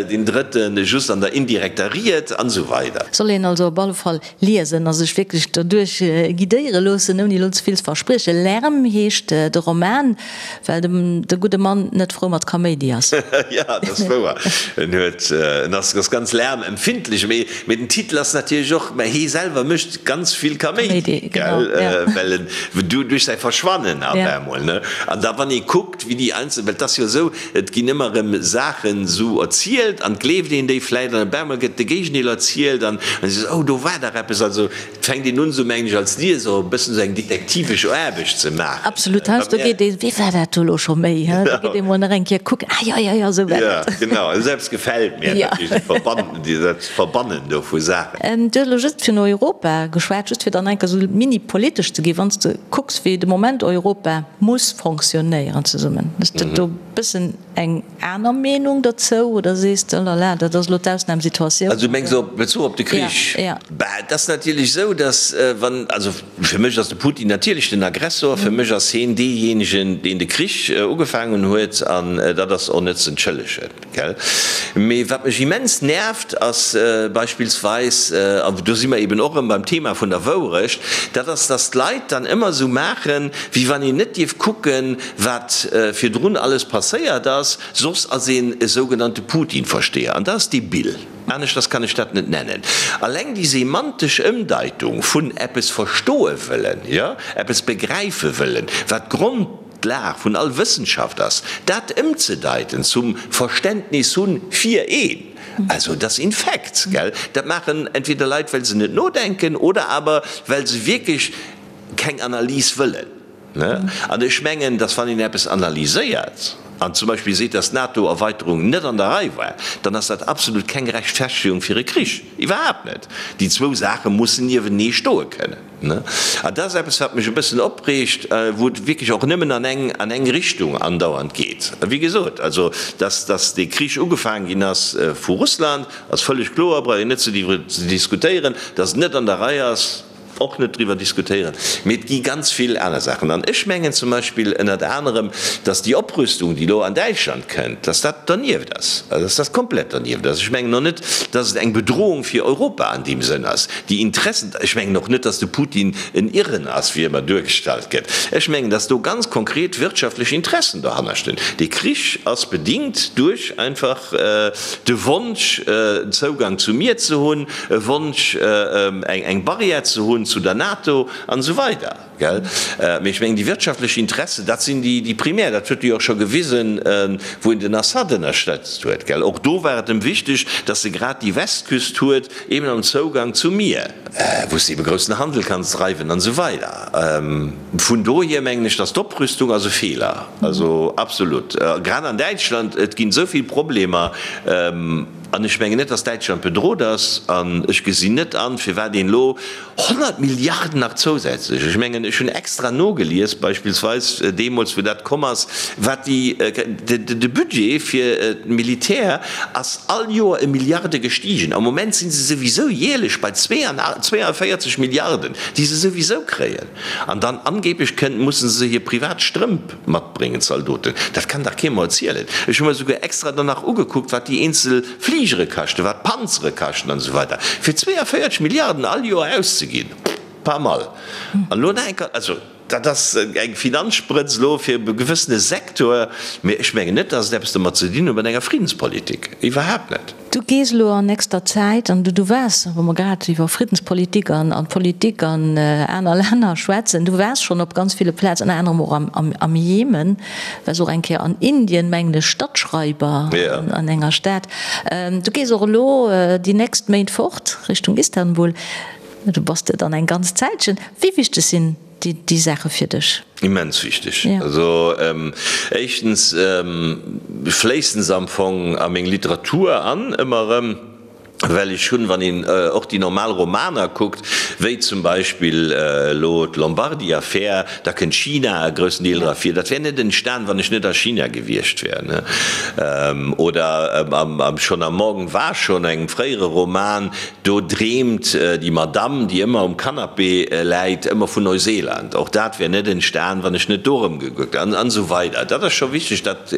deen drëtte just an der indirekter Ried an esou weider. Soll een also op alle Fall Liesen a sech wierklech doduerch guidéiere loossen, ouni elo ze vill ze verspriechen. Lärm heescht de Roman, well de gudde Mann net frou mat Kaméidi ass. Jo, dat ass wouer. En huet, en ass ganz lärmempfindlech. Mee, mee den Titel ass natierlech och, mä hie selwer mécht ganz vill Kaméidi, gell, well en duerch säi Verschwannen op eemol, ne. An da wann ee kuckt, wéi déi einzel, well et ass jo esou, Et ginn ëmmer erëm Saachen esou erzielt an et gleeft een déi vläit an op eemol gëtt de Géigendeel erzielt an an sees, oh do war dach eppes. Also et fänkt een un esou, mengen ech, als Lieser e bëssen esou eng detektivesch Aarbecht ze maachen. Absolut, heiansdo geet ee, wéi war dat do elo scho méi, hä? Da geet ee mol nach eng Kéier kucken, ah jo, jo, jo, esou war dat. Jo, genau, esou eppes gefält mir natierlech, déi Verbannen, déi dat Verbannen do vu Saachen. Du hues elo just vun Europa geschwat, just fir dann eng Kéier esou mini-politesch. politesch ze ginn, wann s de kucks wéi de Moment Europa muss fonctionnéieren zesummen, hues de do e bëssen eng aner Meenung dozou oder sees de, oh la la, dat ass elo d'Ausnamsituatioun? Also du mengs op Bezuch op de Krich? Jo, jo. Bah, et ass natierlech esou, datt wann, also fir mech ass de Putin natierlech den Aggressor, fir mech ass heen deejéinegen, deen de Krich ugefaangen huet an dat ass och net z'entschëllegen, gell. Mee wat mech immens nervt ass beispillsweis, an do si mer eben och erëm beim Thema vun der Wourecht, dat ass, datt d'Leit dann ëmmer esou maachen, wéi wann een net dierf kucken, wat virdrun alles passéiert ass, soss ass een e sougenannte Putin-Versteher. An dat ass debil. Aneschters kann ech dat net nennen. Alleng déi semantesch Ëmdeitung vun eppes verstoe wëllen, jo, eppes begräife wëllen, wat d'Grondlag vun all Wëssenschaft ass, dat ëmzedeiten zum Verständnis hunn fir een, also dat ass infekt, gell. Dat maachen entweder Leit, well se net nodenken oder awer well se wierklech keng Analys wëllen. An ech mengen, datt wann een eppes analyséiert an zum Beispill seet, datt d'NATO-Erweiterung net an der Rei war, dann ass dat absolut keng Rechtfertegung fir e Krich. Iwwerhaapt net. Déi zwou Saache mussen niewenee stoe kënnen. An dat ass eppes, wat mech e bëssen opreegt, wou et wierklech och nëmmen an eng, an eng Richtung andauernd geet. Wéi gesot, also datt, datt dee Krich ugefaangen ginn ass vu Russland, ass vëlleg kloer, brauch een net ze diskutéieren. Datt et net an der Rei ass, och net driwwer diskutéieren, mee et gi ganz vill aner Saachen. An ech mengen zum Beispill ënnert anerem, datt déi Oprüstung, déi elo an Däitschland kënnt, datt dat dernieft ass, also datt dat komplett dernieft ass. Ech mengen och net, datt et eng Bedrohung fir Europa an deem Sënn ass. Déi Interessen, ech mengen och net, datt de Putin en Irren ass, wéi ëmmer duergestallt gëtt. Ech mengen, datt do ganz konkret wirtschaftlech Interessen dohanner stinn. Dee Krich ass bedingt duerch einfach de Wonsch, Zougang zum Mier ze hunn, e Wonsch eng Barrière ze hunn zu der NATO an esou weider, gell. Mee ech mengen, déi wirtschaftlech Interessen, dat sinn déi primär. Dat huet e jo och scho gewisen, wou en den Assad ënnerstëtzt huet, gell. Och do war et em wichteg, datt e grad déi Westküst huet, eben am Zougang zum Mier, wou s de ebe groussen Handel kanns dreiwen an esou weider. Vun dohier mengen ech, datt d'Oprüstung ass e Feeler, also absolut, grad an Däitschland. Et ginn esou vill Problemer. An ech mengen net, datt Däitschland bedrot ass. An ech gesinn net an, firwat een elo 100 Milliarden nach zousätzlech, ech mengen, ech hunn extra nogelies, beispillsweis deemools, wou dat komm ass, wat déi, de Budget fir d'Militär ass all Joer ëm Milliarde gestigen. Am Moment si se souwisou jäerlech bei 42 Milliarden, déi se souwisou kréien. An dann angeblech kënnt, musse se hir privat Strëmp matbréngen, d'Zaldoten. Dat kann dach kee mer erzielen. Ech hu mer esouguer extra dann nach ugekuckt, wat déi eenzel Fligere kaschten, wat d'Panzere kaschten an esou weider. Fir 42 Milliarden all Joer auszeginn, pas mal. An elo nach eng Kéier, also dat ass eng Finanzsprëtz elo fir e gewëssene Sektor, mee ech mengen net, dass et eppes domat ze dinn huet mat enger Friddenspolitik, iwwerhaapt net. Du gees elo an nächster Zäit, an du waars, wa mer grad iwwer Friddenspolitik an Politik an aner Länner schwätzen, du waars schonn op ganz ville Plazen, ënner anerem och am Jemen, waars och eng Kéier an Indien, mengen ech, Stadtschreiber an enger Stad. Du gees och elo déi nächst Méint fort Richtung Istanbul. Du bass de dann eng ganz Zäitchen. Wéi wichteg sinn déi Saache fir dech? Immens wichteg. Also éischtens fléissen se am Fong a meng Literatur an, ëmmer erëm, well ech hunn, wann een och déi normal Romaner kuckt, wéi zum Beispill elo d'Lombardi-Affär, da kënnt China e groussen Deel dra vir. Dat wär net entstan, wann ech net a China gewiescht wär. Oder schonn am Morgen war schon, engem fréiere Roman, Do dreemt déi Madamm, déi ëmmer um Canapé läit, ëmmer vun Neuseeland. Och dat wär net entstan, wann ech net do erëmgekuckt an esou weider. Dat ass scho wichteg, dat,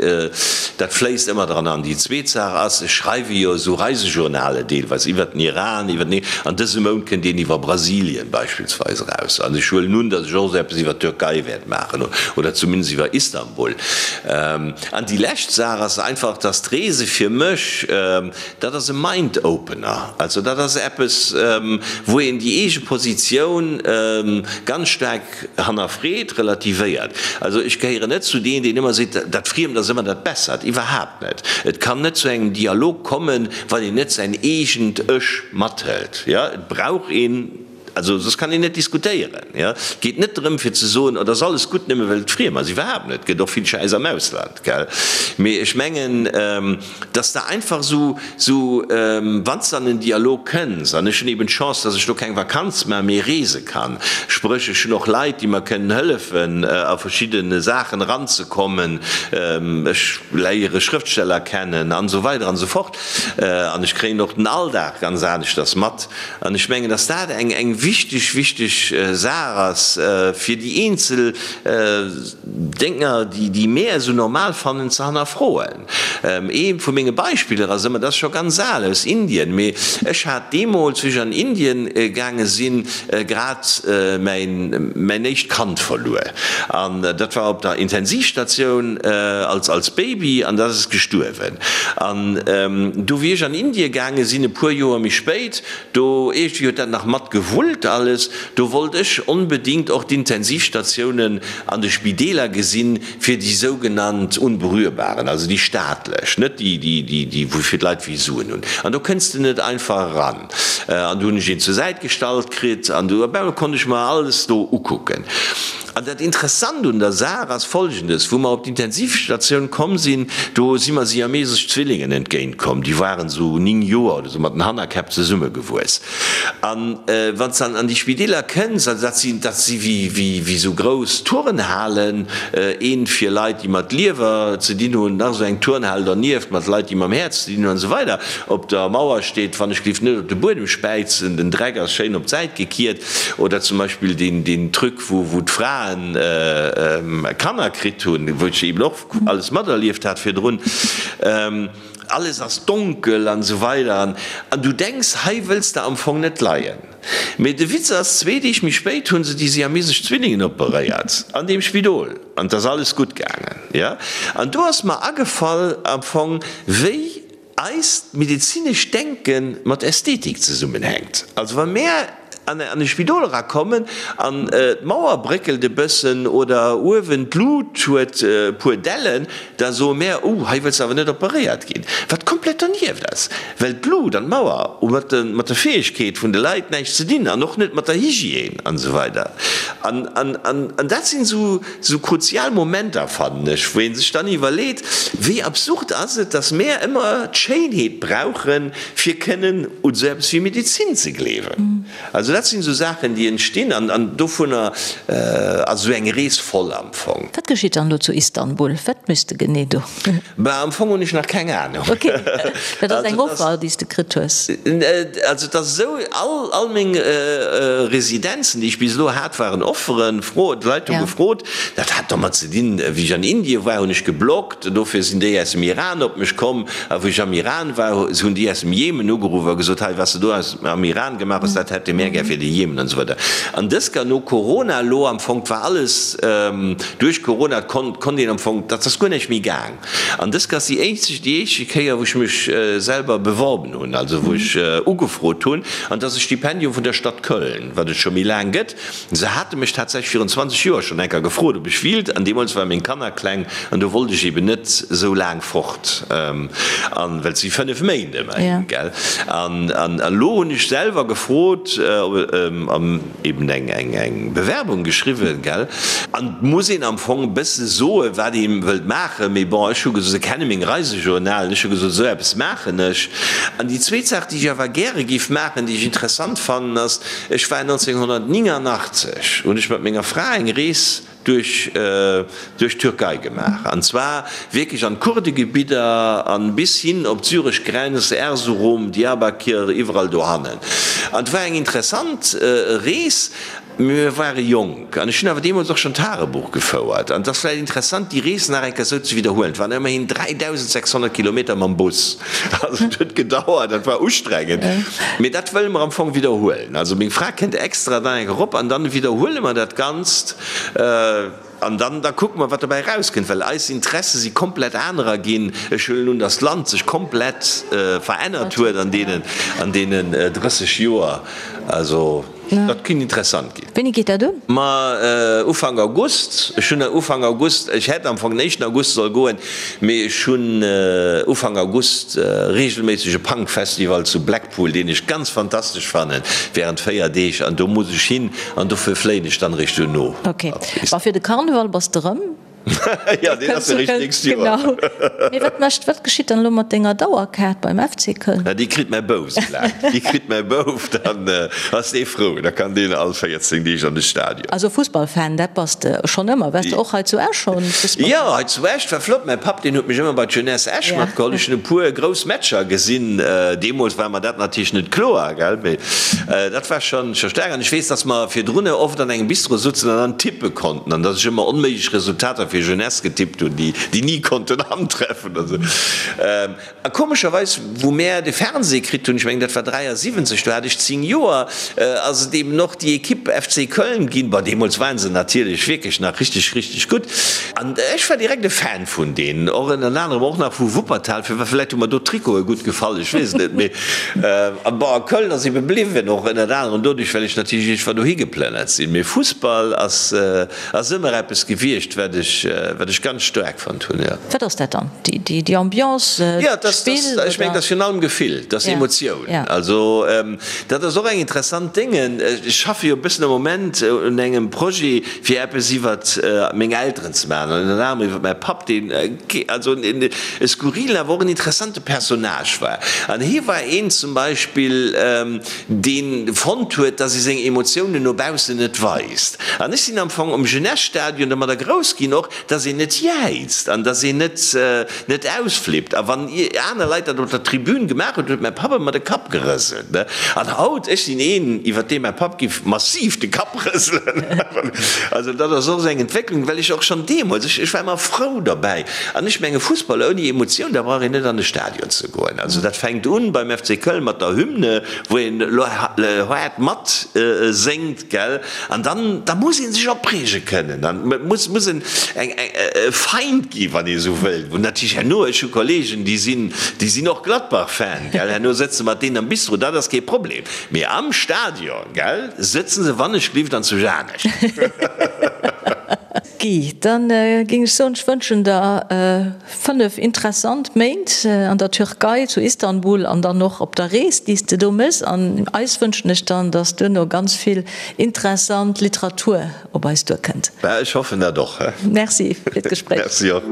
dat fléisst ëmmer dran an. Déi zweet Saach ass, ech schreiwe jo esou Reisejournale deelweis iwwert den Iran, iwwert den, an dësem Mount kënnt een iwwer Brasilien beispillsweis eraus. An ech huelen un, datt ech och esou eppes iwwer d'Türkei wäert maachen oder zumindest iwwer Istanbul. An déi lescht Saach ass einfach, datt d'Reese fir mech, Dat ass e Mind-Opener. Also dat ass eppes, wou een déi eege Positioun ganz staark hannerfreet, relativéiert. Also ech gehéieren net zu deen, deen ëmmer seet, dat Friemt ass ëmmer dat Bessert. Iwwerhaapt net. Et kann net zu engem Dialog kommen, wann een net säin eegent Ech mathëlt. Jo, et brauch een. Also soss kann een net diskutéieren. Jo. Et geet net drëm fir ze soen, oh, dat ass alles gutt nëmme well et friem ass. Iwwerhaapt net. Et gëtt och vill Schäiss am Ausland, gell. Mee ech mengen, dass de einfach esou, esou, wann s de an en Dialog kënns, an ech hunn eben d'Chance, dass ech do keng Vakanz maachen, mee reese kann, spréch ech hunn och Leit, déi mer kënnen hëllefen a verschidde Saachen eranzekommen, ech léiere Schrëftsteller kennen an esou weider an esou fort, an ech kréien och den Alldag ganz aneschters mat. An ech mengen, dass dat eng, eng wichteg, wichteg Saach ass, fir déi eenzel Dénger, déi, déi mär esou normal fannen, ze hannerfroen. Ee vu menge Beispiller ass ëmmer, dat ass scho ganz al, aus Indien, mee ech hat deemools, wéi ech an Indien gaange sinn, grad mäin, mäin éischt Kand verluer. An dat war op der Intensivstatioun als, als Baby, an dat ass gestuerwen. An du wéi ech an Indie gaange sinn, e puer Joer méi spéit, do iergendwéi huet dat nach mat gewullt alles, do wollt ech onbedingt och d'Intensivstatiounen an de Spideeler gesinn, fir déi sougenannt Unberührbaren, also déi staatlech, net déi, déi, déi wou fir d'Leit wéi Suen hunn. An do kënns de net einfach eran. An du hunn ech een zur Säit gestallt kritt an du op eemol konnt ech mer alles do ukucken. An dat Interessant un der Saach ass Folgendes, Wou mer op d'Intensivstatioun komm sinn, do si mer siamesesch Zwillingen entgéint komm, déi waren esou 9 Joer oder esou mat den Hannerkäpp zesummegewuess. An wann s de an déi Spideeler kënns, also dat sinn, dat si wéi, wéi, wéi esou grouss Turnhalen, eent fir Leit, déi mat Liewer ze dinn hunn, nach esou eng Turnhal dernieft mat Leit, déi mam Häerz ze dinn hunn an esou weider. Op der Mauer steet, wann ech géif net op de Buedem späizen, den Dreck ass schéin op d'Säit gekiert. Oder zum Beispill deen, deen Truc, wou, wou d'Fraen Kanner kritt hunn, wou ech eben och alles materlieft hat virdrun. Alles ass donkel an esou weider an du denks, hei wëlls de am Fong net leien. Mee de Witz ass, zwee Deeg méi spéit hu se déi siamesesch Zwillingen operéiert an deem Spidol an et ass alles gutt gaangen. Jo, an do ass mer agefall am Fong, wéi eist medezinescht Denke mat Ästhetik zesummenhänkt. Also wa mär an e Spidol erakommen an d'Mauer bréckelt e bëssen oder uewen d'Lut huet e puer Dellen, da soe mär, Oh, hei wëlls de awer net operéiert ginn. Wat komplett dernieft ass, well d'Lut an d'Mauer hu mat der Fäegkeet vun de Leit näischt ze dinn an och net mat der Hygiène an esou weider. An dat sinn esou Sou kruzial Momenter, fannen ech, wou ee sech dann iwwerleet, wéi absurd ass et, dass mär ëmmer d'Schéinheet brauchen, fir kënnen un sou eppes wéi Medezin ze gleewen. Also dat sinn sou Saachen, déi entstinn, an dovunner ass esou eng Rees voll am Fong. Wat geschitt dann elo zu Istanbul? Wat méchs de genee do? Bah, am Fong hunn ech nach keng Ahnung. Ok, dat ass eng Offer, déi s de kritt hues. Also et ass esou, all, all meng Residenzen, déi ech bis elo hat, waren Offeren, Fro, d'Leit hu gefrot. Dat hat domat ze dinn, wéi ech an Indien war, hunn ech gebloggt, dofir sinn déi aus dem Iran op mech komm. A wou ech am Iran war, hunn déi aus dem Jemen ugeruff a gesot, hei, wat s de do aus, am Iran gemaach hues, dat hätte mär gär fir de Jemen an esou weider. An dës Kéier no Corona elo am Fong, 't war alles duerch Corona, 't konnt een am Fong, dat ass guer näischt méi gaang. An dës Kéier ass déi eenzeg, déi éischte Kéier, wou ech mech selwer beworben hunn, also wou ech ugefrot hunn, an dat ass e Stipendium vun der Stadt Köln, wat et scho méi laang gëtt. Se hate mech tatsächlech virun 20 Joer schonn eng Kéier gefrot, ob ech wílt, an deemools ware meng Kanner kleng an do wollt ech eben net esou laang fort, an well et si 5 Méint ëmmerhin, gell. An elo hunn ech selwer gefrot, an eben eng eng Bewerbung geschriwwen, gell. An et muss een am Fong e bësse soen, wat ee wëllt maachen, mee bon, ech hu gesot, se kenne meng Reisejournalen, ech hu gesot, esou eppes maachen ech. An déi zweet Saach, déi ech awer gäre géif maachen, déi ech interessant fannen, ass, Ech war 1989, hunn ech mat menger Fra eng Rees duerch duerch d'Türkei gemaach, an zwar wierklech an d'Kurdegebidder an bis hin op d'syresch Grenz, Erzurum, Diyarbakir, iwwerall dohannen. An et war eng interessant Rees. Mee mir ware jonk an ech hunn awer deemools och schonn Tagebuch gefouert. An et ass vläicht interessant, déi Rees nach eng Kéier esou ze widderhuelen. Et waren ëmmerhin 3.600 Kilometer mam Bus. Also et huet gedauert, dat war ustrengend. Mee dat wëlle mer am Fong widderhuelen. Also meng Fra kënnt extra dann eng Kéier erop an dann widderhuele mer dat Ganzt. An dann, da kucke mer, wat dobäi erauskënnt, well eis Interesse si komplett anerer ginn. Ech huelen un, datt d'Land sech komplett verännert huet an deenen, an deenen 30 Joer. Also dat kinnt interessant ginn. Wéini geet dat un? Ma Ufank August. Ech hunn Ufank August, ech hätt am Fong den éischten August soll goen, mee ech hunn Ufank August reegelméisseg e Punk-Festival zu Blackpool, deen ech ganz fantastesch fannen, während 4 Deeg an do muss ech hin an dofir fléien ech dann eréischt duerno. Ok, ma fir de Karneval bass de rëm? Jo, deen ass eréischt d'nächst Joer. Genau. Mee wat mécht, wat geschitt dann elo mat denger Dauerkaart beim FC Köln? Déi kritt mäi Bouf sou laang. Déi kritt mäi Bouf, dann ass dee frou, da kann deen all 14 Deeg an de Stadion. Also Fussballfan, dat bass de schonn ëmmer. Waars de och hei zu Esch schonn Fussballfan? Jo, hei zu Esch war flott. Mäi Papp, deen huet mech ëmmer bei d'Jeunesse Esch matgeholl. Ech hunn e puer grouss Matcher gesinn. Deemools war mer dat natierlech net kloer, gell, mee dat war schonn scho staark. An ech weess, dass mer virdrunner oft an engem Bistro sutzen an dann tippe konnten an dass ech ëmmer onméiglech Resultater fir Jeunesse getippt hunn, déi déi ni konnten antreffen. Also, a komescherweis, wou mär de Fernseh kritt hunn, ech mengen dat war 73, do hat ech 10 Joer, ass et eben och déi Equipe FC Köln ginn. Bon, deemools waren se natierlech wierklech nach richteg, richteg gutt. An ech war direkt e Fan vun deenen, och ënner anerem och nach vu Wuppertal, fir vläicht hu mer do d'Trikote gutt gefall, ech weess et net. Mee bon, a Köln ass ebe bliwwen, och ënnert anerem doduerch, well ech natierlech iergendwann dohi geplënnert sinn. Mee Fussball ass ass ëmmer eppes gewiescht, wat ech, wat ech ganz staark fonnt hunn, jo. Wat ass dat dann? Déi, déi, déi Ambiance, Jo, et ass, d'Spill, ech mengen, et ass virun allem Gefill, et ass Emotioun. Also, dat ass och eng interessant Dénge. Ech schaffe jo e bëssen am Moment un engem Projet, fir eppes iwwert meng Elteren ze maachen, an ënner anerem iwwert mäi Papp, deen also e skurrilen, awer och en interessante Personnage war. An hie war een zum Beispill, deen fonnt huet, dass ee seng Emotiounen no baussen net weist. An ech sinn am Fong um Jeunesse-Stadion domadder grouss ginn och, dass een net jäizt an dass een net net ausflippt. A wann aner Leit dat op der Tribün gemaach hunn, huet mäi Papp ëmmer de Kapp gerëselt. An haut, ech sinn een, iwwer dee mäi Papp giff massiv de Kapp rëselen. Also dat ass och esou eng Entwécklung, well ech och schonn deemools, ech ech war ëmmer frou derbäi. An ech menge Fussball ouni Emotioun, da brauch een net an de Stadion ze goen. Also dat fänkt un beim FC Köln mat der Hymne, wou een elo haart mat séngt, gell, an dann da muss ee sech opreege kënnen an et muss muss en eng e Feind gi wann ee esou wëllt, wou natierlech herno, ech hu Kollegen déi sinn déi sinn och Gladbach-Fan, gell, herno sëtze mat deenen am Bistro, dat ass kee Problem, mee am Stadion, gell, sëtze se wann ech glift an zu Janesch. Guy, dann géing ech soen, ech wënschen der 5 interessant Méint an der Türkei, zu Istanbul an dann och op der Rees, déi s de do méchs. An eis wënschen ech dann, dass duerno ganz vill interessant Literatur op eis duerkënnt. Bah, ech hoffen dat och. Merci fir d'Gespréich. Merci och.